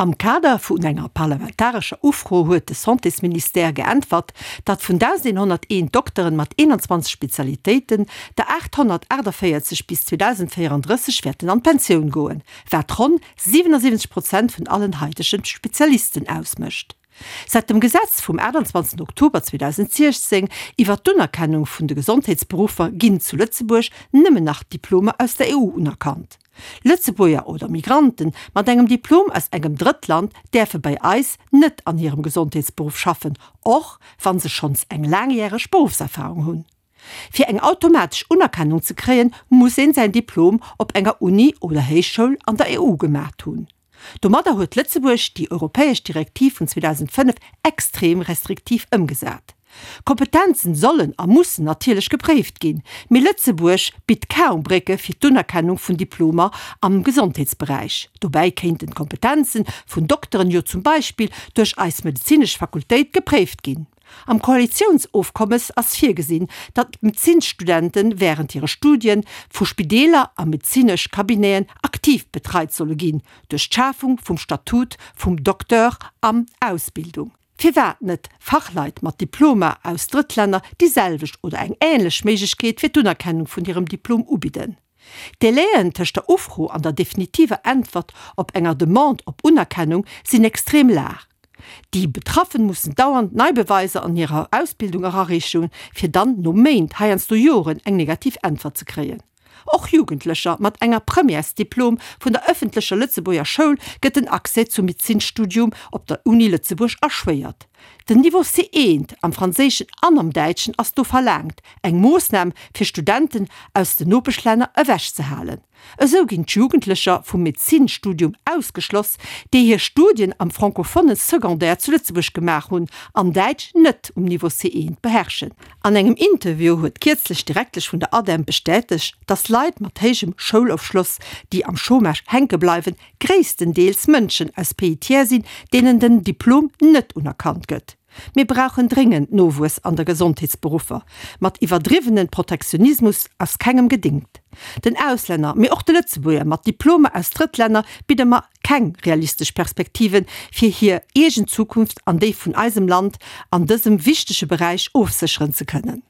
Am Kader vun enger parlamentarescher Ufro huet de Santésministère geäntwert, datt vun 1.101 Dokteren mat 21 Spezialitéiten der 848 bis 2034 wäerten an d'Pensioun goen, wat ronn 77 Prozent vun allen haitege Spezialisten ausmécht. Säit dem Gesetz vum 28 Oktober 2016 iwwer d'Unerkennung vun de Gesondheetsberuffer ginn zu Lëtzebuerg nëmmen nach Diplomer aus der EU unerkannt. Lëtzebuerger oder Migranten mat engem Diplom aus engem Drëttland däerfe bei eis net an hirem Gesondheetsberuff schaffen, och wa se schonns eng laangjäreg Beruffserfarung hunn. Fir eng automatesch Unerkennung ze kréien, muss een säin Diplom op enger Uni oder Héichschoul an der EU gemaacht hunn. Domadder huet Lëtzebuerg déi europäesch Direktiv vun 2005 extrem restriktiv ëmgesat. Kompetenzen sollen a mussen natierlech gepréift ginn, mee Lëtzebuerg bitt kaum Brécke fir d'Unerkennung vun Diplomer am Gesondheetsberäich. Dobäi kéinten d'Kompetenzen vun Dokteren jo zum Beispill duerch eis medezinesch Fakultéit gepréift ginn. Am Koalitiounsofkommes ass virgesinn, datt d'Medezinsstudente wärend hire Studie vu Spideeler a medezinesch Cabineten aktiv betreit solle ginn, duerch d'Schafung vum Statut vum Docteur an Ausbildung. Firwat net Fachleit mat Diplomer aus Drëttlänner déi selwecht oder eng änlech Méiglechkeet fir d'Unerkennung vun hirem Diplom ubidden? D'Délaiën tëscht der Ufro an der definitiver Äntwert op enger Demande op Unerkennung sinn extrem laang. Déi Betraffen mussen dauernd nei Beweiser an hirer Ausbildung erareechen, fir dann no Méint, heiansdo Joren, eng negativ Äntwert ze kréien. Och Jugendlecher mat enger Premièresdiplom vun der ëffentlecher Lëtzebuerger Schoul gëtt den Accès zum Medezinsstudium op der Uni Lëtzebuerg erschwéiert. Den Niveau C1 am Franséischen an am Däitschen ass do verlaangt, eng Moossnam fir Studenten aus den Nopeschlänner ewechzehalen. Esou ginn d'Jugendlecher vum Medezinstudium ausgeschloss, déi hir Studien am francophone Secondaire zu Lëtzebuerg gemaach hunn an Däitsch net um Niveau C1 beherrschen. An engem Interview huet kierzlech d'Direktesch vun der ADEM bestätegt, dass Leit mat héijem Schoulofschloss, déi am Chômage hänke bleiwen, gréisstendeels Mënschen aus Pays tiers sinn, deenen den Diplom net unerkannt gëtt. Mir brauchen dréngend Nowuess an der Gesondheetsberuffer. Mat iwwerdriwwenen Protektionismus ass kengem gedingt. Den Auslänner, mee och de Lëtzebuerger mat Diplomer aus Drëttlänner bidde mer keng realistesch Perspektiven, fir hir eegen Zukunft an déi vun eisem Land an dësem wichtege Beräich ofsécheren ze kënnen.